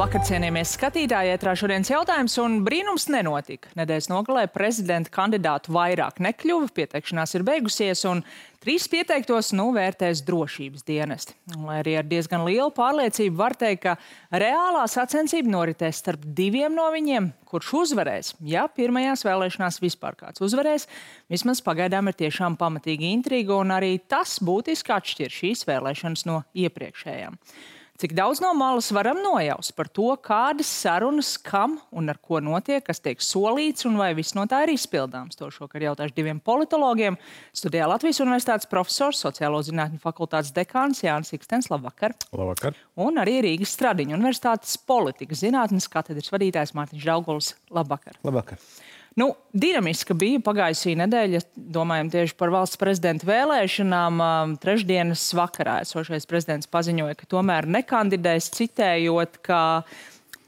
Labvakar, cienījamies skatītāji, ētrā šodienas jautājums, un brīnums nenotika. Nedēļas nogalē prezidenta kandidātu vairāk nekļuva, pieteikšanās ir beigusies, un 3 pieteiktos vērtēs drošības dienesti. Lai arī ar diezgan lielu pārliecību var teikt, ka reālā sacensība noritēs starp 2 no viņiem, kurš uzvarēs. Ja pirmajās vēlēšanās vispār kāds uzvarēs, vismaz pagaidām ir tiešām pamatīga intriga, un arī tas būtiski atšķir šīs vēlēšanas no iepriekšējām. Cik daudz no malas varam nojaust par to, kādas sarunas, kam un ar ko notiek, kas tiek solīts un vai viss no tā ir izpildāms. To šokar jautāšu 2 politologiem. Studijā Latvijas Universitātes profesors, sociālo zinātņu fakultātes dekāns Jānis Ikstens. Labvakar. Labvakar. Un arī Rīgas Stradiņu Universitātes politikas zinātnes katedras vadītājs Mārtiņš Dauguls. Labvakar. Labvakar. Dinamiska bija pagājusī nedēļa, domājam tieši par valsts prezidenta vēlēšanām. Trešdienas vakarā esošais prezidents paziņoja, ka tomēr nekandidēs, citējot, ka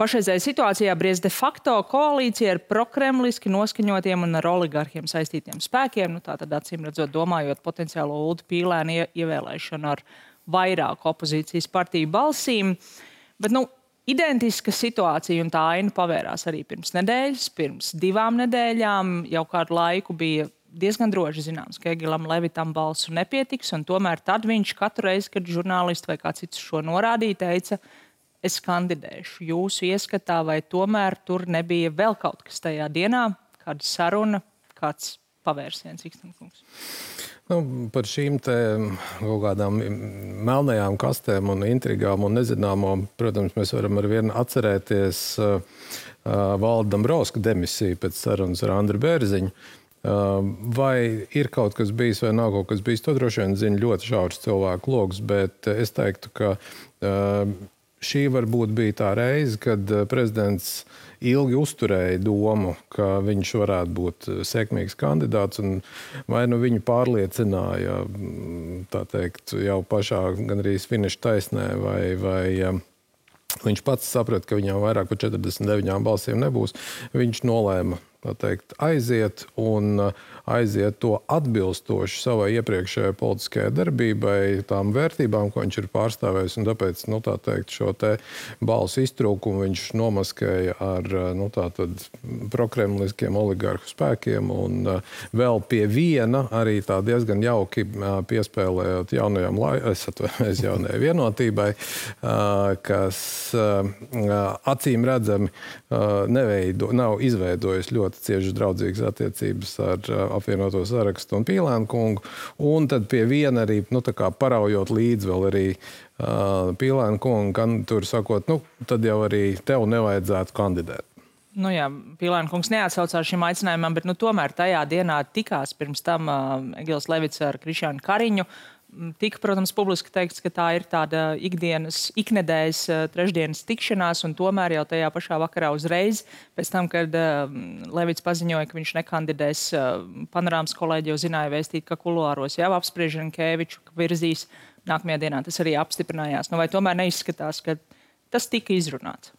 pašreizējā situācijā briez de facto koalīcija ar prokremliski noskaņotiem un ar oligarhiem saistītiem spēkiem. Tātad acīm redzot, domājot potenciālo Uldu Pīlēnu ievēlēšanu ar vairāku opozīcijas partiju balsīm. Bet, identiska situācija un tā aina pavērās arī pirms nedēļas, pirms 2 nedēļām. Jau kādu laiku bija diezgan droši zināms, ka Egilam Levitam balsu nepietiks, un tomēr tad viņš katru reizi, kad žurnālisti vai kāds cits šo norādīja, teica, es kandidēšu. Jūsu ieskatā, vai tomēr tur nebija vēl kaut kas tajā dienā, kāda saruna, kāds pavērsiens, Ikstenkungs? Par šīm te kaut kādām melnajām kastēm un intrigām un nezināmo, protams, mēs varam ar vienu atcerēties Valda Dombrovska demisiju pēc sarunas ar Andru Bērziņu. Vai ir kaut kas bijis vai nav kaut kas bijis, to droši vien zina ļoti šaurs cilvēku loks, bet es teiktu, ka šī varbūt bija tā reize, kad prezidents ilgi uzturēja domu, ka viņš varētu būt sekmīgs kandidāts, un vai viņu pārliecināja, tā teikt, jau pašā gandrīz finiša taisnē, vai viņš pats saprata, ka viņam vairāk par 49 balsīm nebūs. Viņš nolēma, tā teikt, aiziet un aiziet to atbilstoši savai iepriekšējai politiskajai darbībai, tām vērtībām, ko viņš ir pārstāvējis, un tāpēc, tā teikt, šo te balsu iztrūkumu viņš nomaskēja ar, tātad prokremliskiem oligarhu spēkiem, un vēl pie viena arī tā diezgan jauki piespēlējot jaunajai vienotībai, kas acīm redzami nav izveidojis ļoti cieši draudzīgas attiecības ar apvienoto sarakstu un Pīlēnu kungu, un tad pie viena arī, paraujot līdzi vēl arī Pīlēnu kungu, tur sakot, tad jau arī tev nevajadzētu kandidēt. Pīlēnu kungs neatsaucās šim aicinājumam, bet tomēr tajā dienā tikās pirms tam Egils Levits ar Krišjānu Kariņu. Tika, protams, publiski teikts, ka tā ir tāda iknedēļas trešdienas tikšanās, un tomēr jau tajā pašā vakarā uzreiz, pēc tam, kad Levits paziņoja, ka viņš nekandidēs, Panorāmas kolēģi jau zināja vēstīt, ka kuluāros jau apspriež Rinkeviču, ka virzīs nākamajā dienā. Tas arī apstiprinājās. Vai tomēr neizskatās, ka tas tika izrunāts?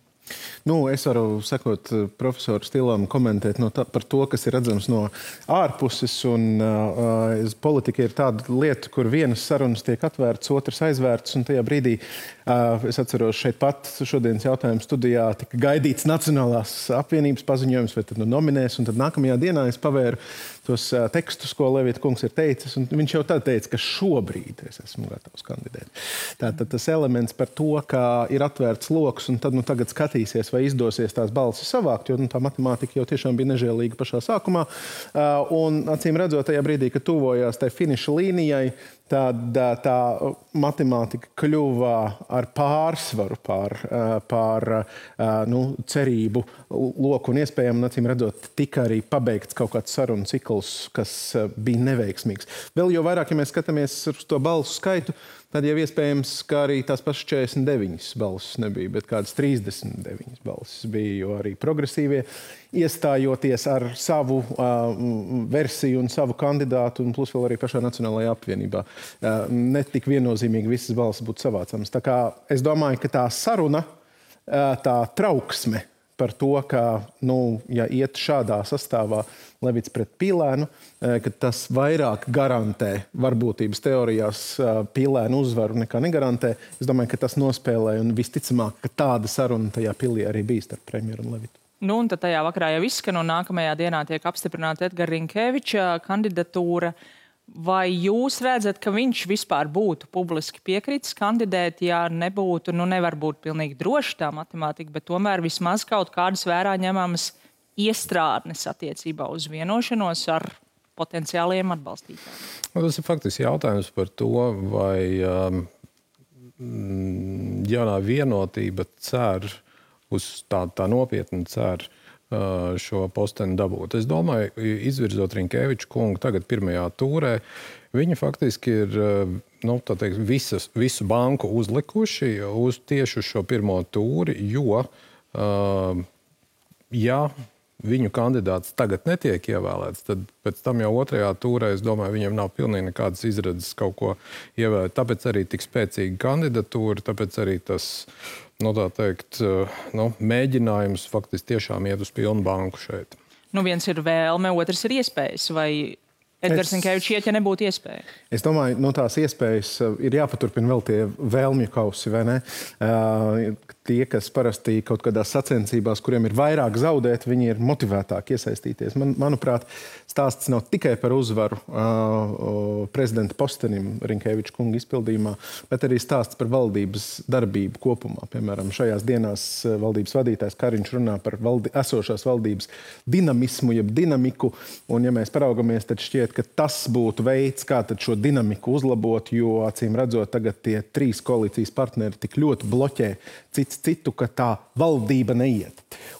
Es varu sekot profesoru stilam, komentēt par to, kas ir redzams no ārpuses, un politika ir tāda lieta, kur vienas sarunas tiek atvērtas, otras aizvērtas, un tajā brīdī, es atceros šeit pat šodienas jautājumu studijā, tika gaidīts Nacionālās apvienības paziņojums, vai tad nominēs, un tad nākamajā dienā es pavēru tos tekstus, ko Levita kungs ir teicis, un viņš jau tad teica, ka šobrīd es esmu gatavs kandidēt. Tātad tas elements par to, ka ir atvērts loks, un tad tagad skatīsies, vai izdosies tās balsis savākt, jo tā matemātika jau tiešām bija nežēlīga pašā sākumā. Un acīm redzot, tajā brīdī, kad tuvojās tai finiša līnijai, tad tā matemātika kļuva ar pārsvaru pār cerību loku un iespējām, un acīm redzot, tika arī pabeigts kaut kāds sarunu cikls, kas bija neveiksmīgs. Vēl jo vairāk, ja mēs skatāmies uz to balsu skaitu, tad jau iespējams, ka arī tās pašas 49 balsis nebija, bet kādas 39 balsis bija, jo arī progresīvie iestājoties ar savu versiju un savu kandidātu, un plus vēl arī pašā Nacionālajā apvienībā. Netik viennozīmīgi visas balsis būtu savācamas. Tā kā es domāju, ka tā saruna, tā trauksme, par to, ka, ja iet šādā sastāvā Levits pret Pīlēnu, ka tas vairāk garantē varbūtības teorijās Pīlēnu uzvaru nekā negarantē. Es domāju, ka tas nospēlē un visticamāk, ka tāda saruna tajā pilī arī bija starp premjeru un Levitu. Un tad tajā vakarā jau izskan un nākamajā dienā tiek apstiprināta Edgara Rinkeviča kandidatūra. Vai jūs redzat, ka viņš vispār būtu publiski piekritis kandidēt, ja nebūtu, nevar būt pilnīgi droši tā matemātika, bet tomēr vismaz kaut kādas vērā ņemamas iestrādnes attiecībā uz vienošanos ar potenciāliem atbalstītājiem? Tas ir faktiski jautājums par to, vai jaunā vienotība cer uz tā nopietni cer šo posteni dabūt. Es domāju, izvirzot Rinkeviču kungu tagad pirmajā tūrē, viņi faktiski ir visu banku uzlikuši tieši uz šo pirmo tūri, jo, ja viņu kandidāts tagad netiek ievēlēts, tad pēc tam jau otrajā tūrē, es domāju, viņiem nav pilnīgi nekādas izredzes kaut ko ievēlēt. Tāpēc arī tik spēcīga kandidatūra, tāpēc arī tas mēģinājums faktiski tiešām iet uz pilnu banku šeit. Viens ir vēlme, otrs ir iespējas. Vai Edgars Rinkevičs iet, ja nebūtu iespēja? Es domāju, tās iespējas ir jāpaturpina vēl tie vēlmju kausi, vai ne? Tie, kas parasti kaut kādās sacensībās, kuriem ir vairāk zaudēt, viņi ir motivētāki iesaistīties. Manuprāt, stāsts nav tikai par uzvaru prezidenta postenim Rinkeviča kunga izpildījumā, bet arī stāsts par valdības darbību kopumā. Piemēram, šajās dienās valdības vadītājs Kariņš runā par esošās valdības dinamismu, jeb dinamiku, un ja mēs paraugamies, tad šķiet, ka tas būtu veids, kā tad šo dinamiku uzlabot, jo, acīm redzot, tagad tie 3 koalīcijas partneri tik ļoti bloķē citu, ka tā valdība neiet.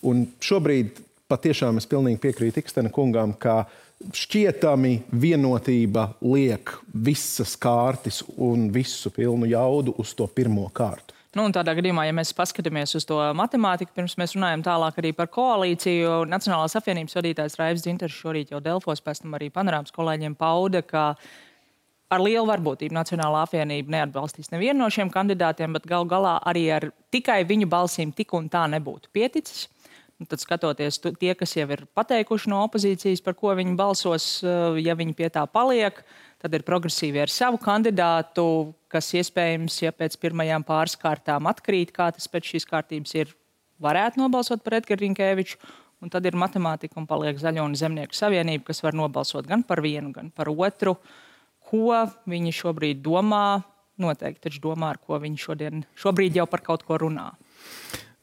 Un šobrīd patiešām es pilnīgi piekrītu Ikstena kungām, ka šķietami vienotība liek visas kārtas un visu pilnu jaudu uz to pirmo kārtu. Un tādā gadījumā, ja mēs paskatāmies uz to matemātiku, pirms mēs runājam tālāk arī par koalīciju, Nacionālās apvienības vadītājs Raivs Dzintars šorīt jau Delfos, pēc tam arī Panorāmas kolēģiem pauda, ka ar lielu varbūtību Nacionālā apvienība neatbalstīs nevienu no šiem kandidātiem, bet gal galā arī ar tikai viņu balsīm tik un tā nebūtu pieticis. Tad skatoties tie, kas jau ir pateikuši no opozīcijas, par ko viņi balsos, ja viņi pie tā paliek, tad ir progresīvi ar savu kandidātu, kas iespējams, ja pēc pirmajām pāris kārtām atkrīt, kā tas pēc šīs kārtības ir, varētu nobalsot par Edgaru Rinkeviču, un tad ir matemātika un paliek Zaļo un Zemnieku savienība, kas var nobalsot gan par vienu, gan par otru. Ko viņi šobrīd domā? Noteikti taču domā, ar ko viņi šobrīd jau par kaut ko runā.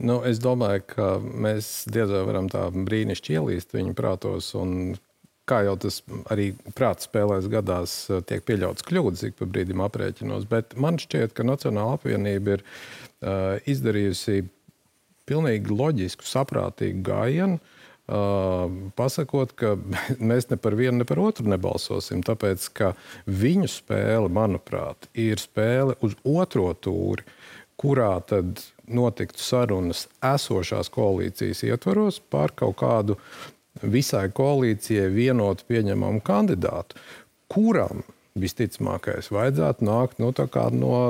Es domāju, ka mēs diez vai varam tā brīnišķi ielīst viņu prātos, un kā jau tas arī prāta spēlēs gadās, tiek pieļauts kļūdas, ik pa brīdim aprēķinos, bet man šķiet, ka Nacionāla apvienība ir izdarījusi pilnīgi loģisku, saprātīgu gājienu, pasakot, ka mēs ne par vienu, ne par otru nebalsosim, tāpēc, ka viņu spēle, manuprāt, ir spēle uz otro tūri, kurā tad notiktu sarunas esošās koalīcijas ietvaros par kaut kādu visai koalīcijai vienotu pieņemamu kandidātu, kuram visticamākais vajadzētu nākt no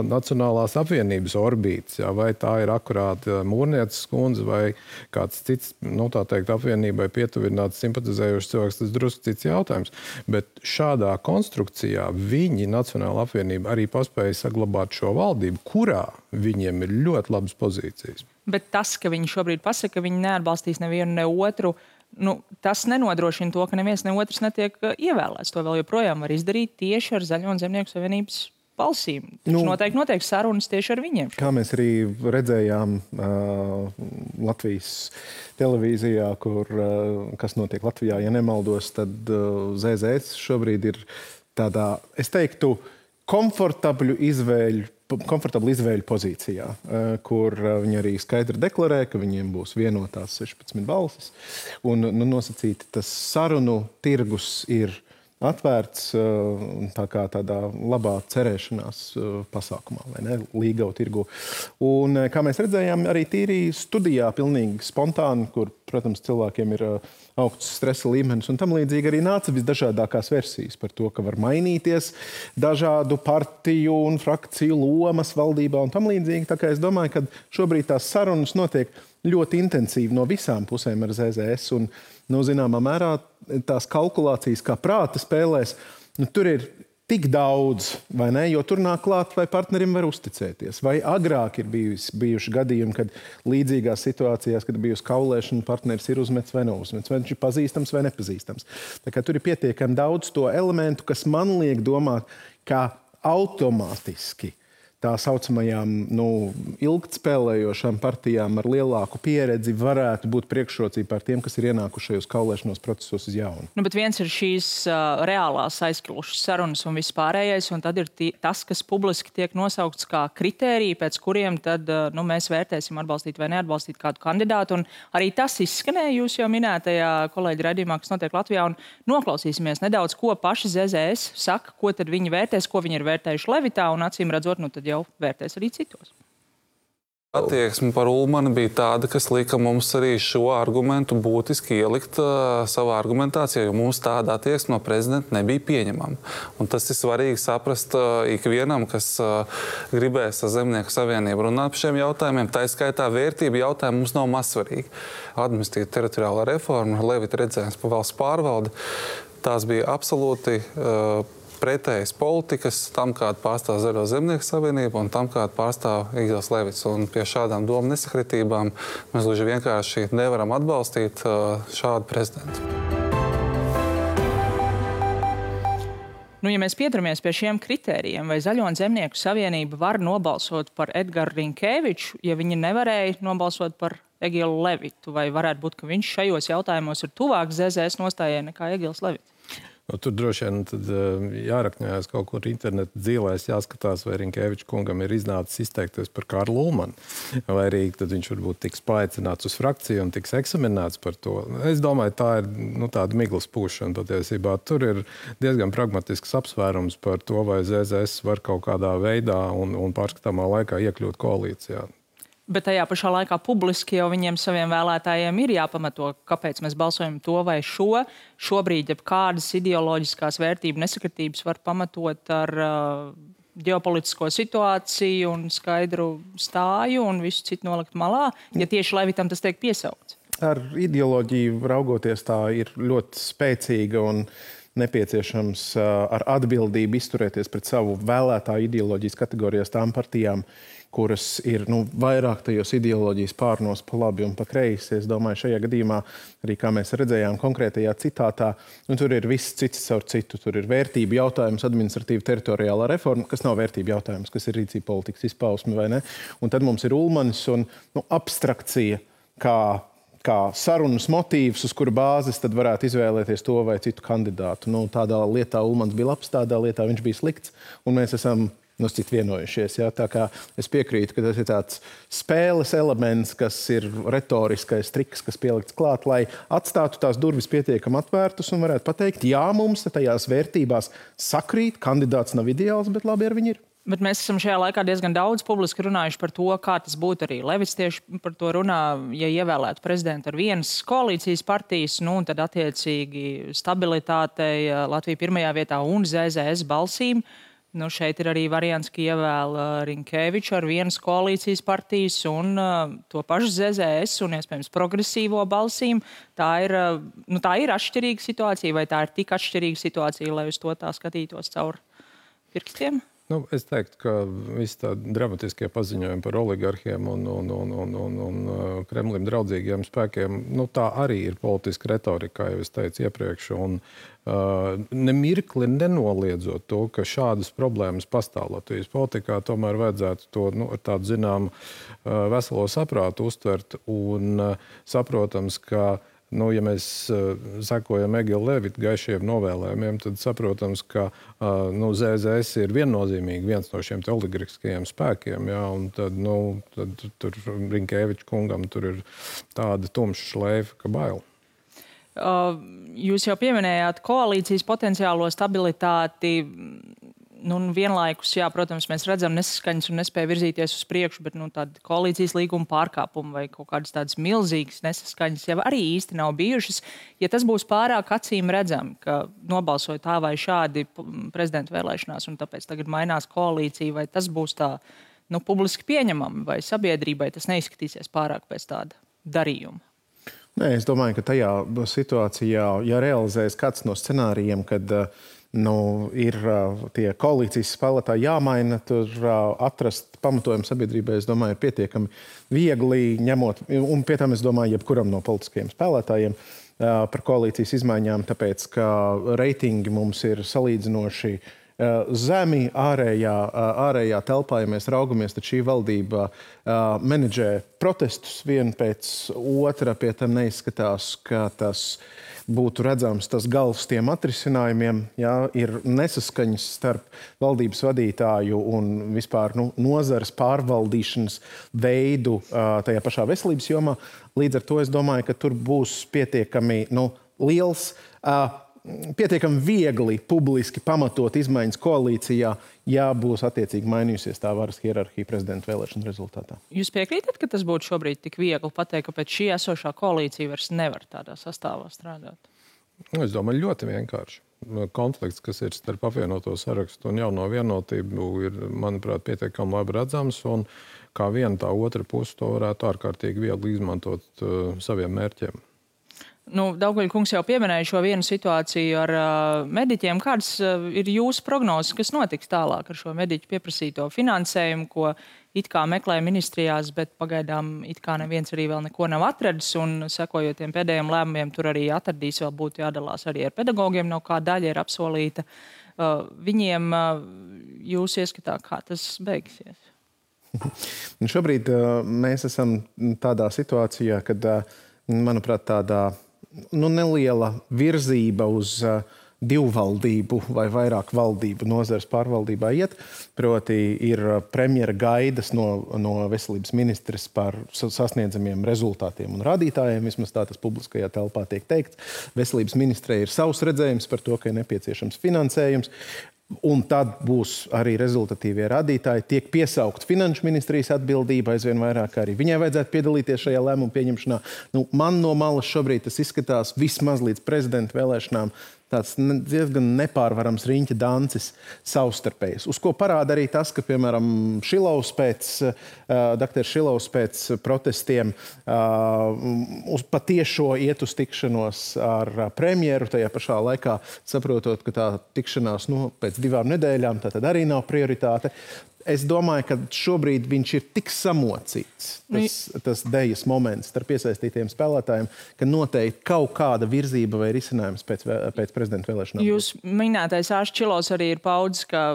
Nacionālās apvienības orbītes, vai tā ir akurāt Mūrnieces kundze vai kāds cits, tā teikt, apvienībai pietuvināts simpatizējošs cilvēks, tas drusku cits jautājums. Bet šādā konstrukcijā viņi, Nacionāla apvienība, arī paspēja saglabāt šo valdību, kurā viņiem ir ļoti labas pozīcijas. Bet tas, ka viņi šobrīd pasaka, ka viņi neatbalstīs nevienu, ne otru, tas nenodrošina to, ka neviens ne otrs netiek ievēlēts. To vēl joprojām var izdarīt tieši ar Zaļo un Zemnieku savienības balsīm. Taču noteikti sarunas tieši ar viņiem. Kā mēs arī redzējām Latvijas televīzijā, kas notiek Latvijā, ja nemaldos, tad ZZS šobrīd ir tādā, es teiktu, komfortablu izvēļu pozīcijā, kur viņi arī skaidri deklarē, ka viņiem būs vienotās 16 balsis. Un nosacīti tas sarunu tirgus ir atvērts tādā labā cerēšanās pasākumā, vai ne, līgau tirgu. Un, kā mēs redzējām, arī tīri studijā pilnīgi spontāni, kur, protams, cilvēkiem ir augsts stresa līmenis un tam līdzīgi arī nāca visdažādākās versijas par to, ka var mainīties dažādu partiju un frakciju lomas valdībā un tam līdzīgi. Tā kā es domāju, ka šobrīd tās sarunas notiek ļoti intensīvi no visām pusēm ar ZZS. Un, zināmā mērā tās kalkulācijas kā prāta spēlēs, tur ir tik daudz, vai ne? Jo tur nāk klāt, vai partnerim var uzticēties. Vai agrāk ir bijuši gadījumi, kad līdzīgās situācijās, kad bijusi kaulēšana, partneris ir uzmets vai neuzmets, vai viņš ir pazīstams vai nepazīstams. Tā kā tur ir pietiekami daudz to elementu, kas man liek domāt, kā automātiski tā saucamajām ilgtspēlējošām partijām ar lielāku pieredzi varētu būt priekšrocība par tiem, kas ir ienākušajos kaulēšanos procesos uz jaunu. Bet viens ir šīs reālās aizklušas sarunas un viss pārējais, un tad ir tas, kas publiski tiek nosaukts kā kritērija, pēc kuriem tad mēs vērtēsim atbalstīt vai neatbalstīt kādu kandidātu. Un arī tas izskanēja jūs jau minētajā kolēģi raidījumā, kas notiek Latvijā, un noklausīsimies nedaudz, ko paši ZZS saka, ko tad viņi vērtēs, ko viņi ir vērtējuši Levitā, un acīm redzot, tad jau vērtēs arī citos. Attieksme par Ulmani bija tāda, kas lika mums arī šo argumentu būtiski ielikt savā argumentācijā, jo mums tāda attieksme no prezidenta nebija pieņemama. Un tas ir svarīgi saprast ikvienam, kas gribēs ar Zemnieku savienību runāt par šiem jautājumiem. Tā skaitā vērtība jautājumi mums nav mazsvarīgi. Administratīva teritoriālā reforma, Levita redzējums par valsts pārvaldi, tās bija absolūti pretējas politikas tam, kāda pārstāv Zaļo Zemnieku savienību un tam, kāda pārstāv Egils Levits. Un pie šādām domu nesakritībām mēs gluži vienkārši nevaram atbalstīt šādu prezidentu. Ja mēs pieturamies pie šiem kritērijiem, vai Zaļo un Zemnieku savienība var nobalsot par Edgaru Rinkēviču, ja viņi nevarēja nobalsot par Egilu Levitu, vai varētu būt, ka viņš šajos jautājumos ir tuvāk ZZS nostājai nekā Egils Levits? Tur droši vien jārakņājas kaut kur interneta dzīvēs, jāskatās, vai Rinkēviča kungam ir iznācis izteikties par Karlu Ulmani, vai arī tad viņš varbūt tiks paaicināts uz frakciju un tiks eksaminēts par to. Es domāju, tā ir tāda miglas pūšana patiesībā. Tur ir diezgan pragmatisks apsvērums par to, vai ZZS var kaut kādā veidā un pārskatāmā laikā iekļūt koalīcijā. Bet tajā pašā laikā publiski jau viņiem saviem vēlētājiem ir jāpamato, kāpēc mēs balsojam to vai šo. Šobrīd kādas ideoloģiskās vērtību nesakritības var pamatot ar ģeopolitisko situāciju un skaidru stāju un visu citu nolikt malā, ja tieši Levitam tas tiek piesaukts. Ar ideoloģiju raugoties tā ir ļoti spēcīga un nepieciešams ar atbildību izturēties pret savu vēlētāju ideoloģijas kategorijās tām partijām, kuras ir vairāk tajos ideoloģijas pārnos pa labi un pa kreisi. Es domāju, šajā gadījumā, arī kā mēs redzējām konkrētajā citātā, tur ir viss cits caur citu. Tur ir vērtību jautājums, administratīva teritoriālā reforma, kas nav vērtību jautājums, kas ir rīcība politikas izpausme, vai ne? Un tad mums ir Ulmanis un abstrakcija, kā sarunas motīvs, uz kura bāzes tad varētu izvēlēties to vai citu kandidātu. Tādā lietā Ulmans bija labs, tādā lietā viņš bija slikts, un mēs esam citu vienojušies. Ja? Tā kā es piekrītu, ka tas ir tāds spēles elements, kas ir retoriskais triks, kas pielikts klāt, lai atstātu tās durvis pietiekami atvērtas un varētu pateikt, jā, mums tajās vērtībās sakrīt, kandidāts nav ideāls, bet labi ar viņu ir. Bet mēs esam šajā laikā diezgan daudz publiski runājuši par to, kā tas būtu arī. Levits tieši par to runā, ja ievēlētu prezidentu ar vienas koalīcijas partijas, un tad attiecīgi stabilitātei Latvija pirmajā vietā un ZZS balsīm. Šeit ir arī variants, ka ievēl Rinkēviču ar vienas koalīcijas partijas un to pašu ZZS un, iespējams, progresīvo balsīm. Tā ir atšķirīga situācija, vai tā ir tik atšķirīga situācija, lai uz to tā skatītos caur pirkstiem? Es teiktu, ka visi tādi dramatiskie paziņojumi par oligarhiem un Kremlim draudzīgiem spēkiem, tā arī ir politiska retorika, kā jau es teicu iepriekš. Un nemirkli nenoliedzot to, ka šādas problēmas pastāv Latvijas politikā, tomēr vajadzētu to ar tādu zināmu veselo saprātu uztvert un saprotams, ka ja mēs sekojam Egila Levita gaišiem novēlējumiem, tad saprotams, ka ZZS ir viennozīmīgi viens no šiem oligarhiskajiem spēkiem. Ja, un tad tur Rinkēviča kungam tur ir tāda tumša šleifa, ka bail. Jūs jau pieminējāt koalīcijas potenciālo stabilitāti. Vienlaikus, jā, protams, mēs redzam nesaskaņas un nespēja virzīties uz priekšu, bet tāda koalīcijas līguma pārkāpuma vai kaut kādas tādas milzīgas nesaskaņas jau arī īsti nav bijušas. Ja tas būs pārāk acīm redzami, ka nobalsoja tā vai šādi prezidenta vēlēšanās un tāpēc tagad mainās koalīcija, vai tas būs tā publiski pieņemami vai sabiedrībai tas neizskatīsies pārāk pēc tāda darījumu? Nē, es domāju, ka tajā situācijā, ja realizēs kāds no scenārijiem, kad ir tie koalīcijas spēlētāji jāmaina, tur atrast pamatojumu sabiedrībai, es domāju, ir pietiekami viegli ņemot, un pie tam es domāju, jebkuram no politiskajiem spēlētājiem par koalīcijas izmaiņām, tāpēc, ka reitingi mums ir salīdzinoši zemi ārējā telpā, ja mēs raugamies, tad šī valdība menedžē protestus vienu pēc otra, pie tam neizskatās, ka tas būtu redzams tas gals tiem atrisinājumiem. Jā, ir nesaskaņas starp valdības vadītāju un vispār nozares pārvaldīšanas veidu tajā pašā veselības jomā. Līdz ar to es domāju, ka tur būs pietiekami liels, pietiekami viegli publiski pamatot izmaiņas koalīcijā, ja būs attiecīgi mainījusies tā varas hierarhija prezidenta vēlēšanu rezultātā. Jūs piekrītat, ka tas būtu šobrīd tik viegli pateikt, ka pēc šī esošā koalīcija vairs nevar tādā sastāvā strādāt? Es domāju, ļoti vienkārši. Konflikts, kas ir starp apvienoto sarakstu un jauno vienotību, ir, manuprāt, pietiekami labi redzams, un kā viena tā otra puse to varētu ārkārtīgi viegli izmantot saviem mērķiem. Daugavļa kungs jau pieminēja šo vienu situāciju ar mediķiem. Kādas ir jūsu prognozes, kas notiks tālāk ar šo mediķu pieprasīto finansējumu, ko it kā meklē ministrijās, bet pagaidām it kā neviens arī vēl neko nav atradis, un sekojot tiem pēdējiem lēmumiem, tur arī atradīs, vēl būtu jādalās arī ar pedagogiem, no kā daļa ir apsolīta. Viņiem jūs ieskatā, kā tas beigsies? Šobrīd mēs esam tādā situācijā, kad, manuprāt, tādā neliela virzība uz divvaldību vai vairāk valdību nozares pārvaldībā iet. Proti ir premjera gaidas no veselības ministres par sasniedzamiem rezultātiem un rādītājiem. Vismaz tā tas publiskajā telpā tiek teikts. Veselības ministrei ir savs redzējums par to, ka ir nepieciešams finansējums. Un tad būs arī rezultatīvie rādītāji. Tiek piesaukt finanšu ministrijas atbildība aizvien vairāk, arī viņai vajadzētu piedalīties šajā lēmumu pieņemšanā. Man no malas šobrīd tas izskatās vismaz līdz prezidenta vēlēšanām tāds diezgan nepārvarams riņķa dancis savstarpējs. Uz ko parāda arī tas, ka, piemēram, dr. Šilovs pēc protestiem patiešo iet uz tikšanos ar premjeru, tajā pašā laikā saprotot, ka tā tikšanās pēc 2 nedēļām tā tad arī nav prioritāte. Es domāju, ka šobrīd viņš ir tik samocīts, tas dejas moments starp iesaistītiem spēlētājiem, ka noteikti kaut kāda virzība vai risinājums pēc prezidenta vēlēšanām. Jūs minētais Ārsts Šilovs arī ir paudzis, ka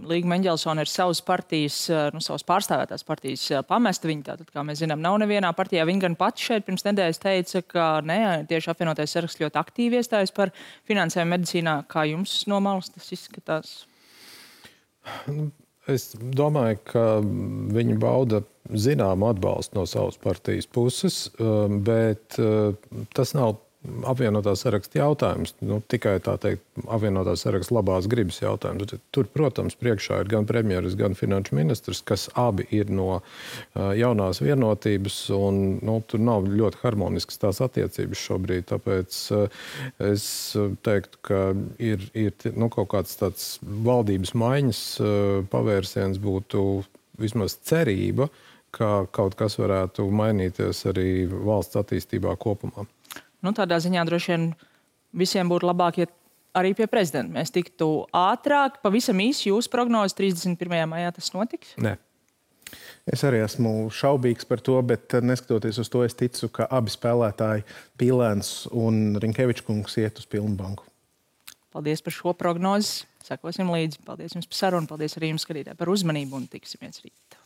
Līga Mendelsone ir savas partijas, savas pārstāvētās partijas pamesta. Viņa tātad, kā mēs zinām, nav nevienā partijā. Viņa gan pati šeit pirms nedēļas teica, ka tieši apvienotais saraksts ļoti aktīvi iestājas par finansējumu medicīnā. Kā jums no malas tas izskatās? Es domāju, ka viņi bauda zināmu atbalstu no savas partijas puses, bet tas nav apvienotā saraksta jautājums. Tikai tā teikt, apvienotā saraksta labās gribas jautājums. Tur, protams, priekšā ir gan premjeras, gan finanšu ministrs, kas abi ir no jaunās vienotības, un tur nav ļoti harmoniskas tās attiecības šobrīd. Tāpēc es teiktu, ka ir kaut kāds tāds valdības maiņas pavērsiens būtu vismaz cerība, ka kaut kas varētu mainīties arī valsts attīstībā kopumā. Tādā ziņā droši vien visiem būtu labāk, ja arī pie prezidenta mēs tiktu ātrāk. Pavisam īsi jūsu prognozes 31. maijā tas notiks? Nē. Es arī esmu šaubīgs par to, bet neskatoties uz to, es ticu, ka abi spēlētāji, Pīlēns un Rinkevičs kungs, iet uz pilnu banku. Paldies par šo prognozi. Sekosim līdzi. Paldies jums par sarunu. Paldies arī jums, skatītāji, par uzmanību un tiksimies rīt.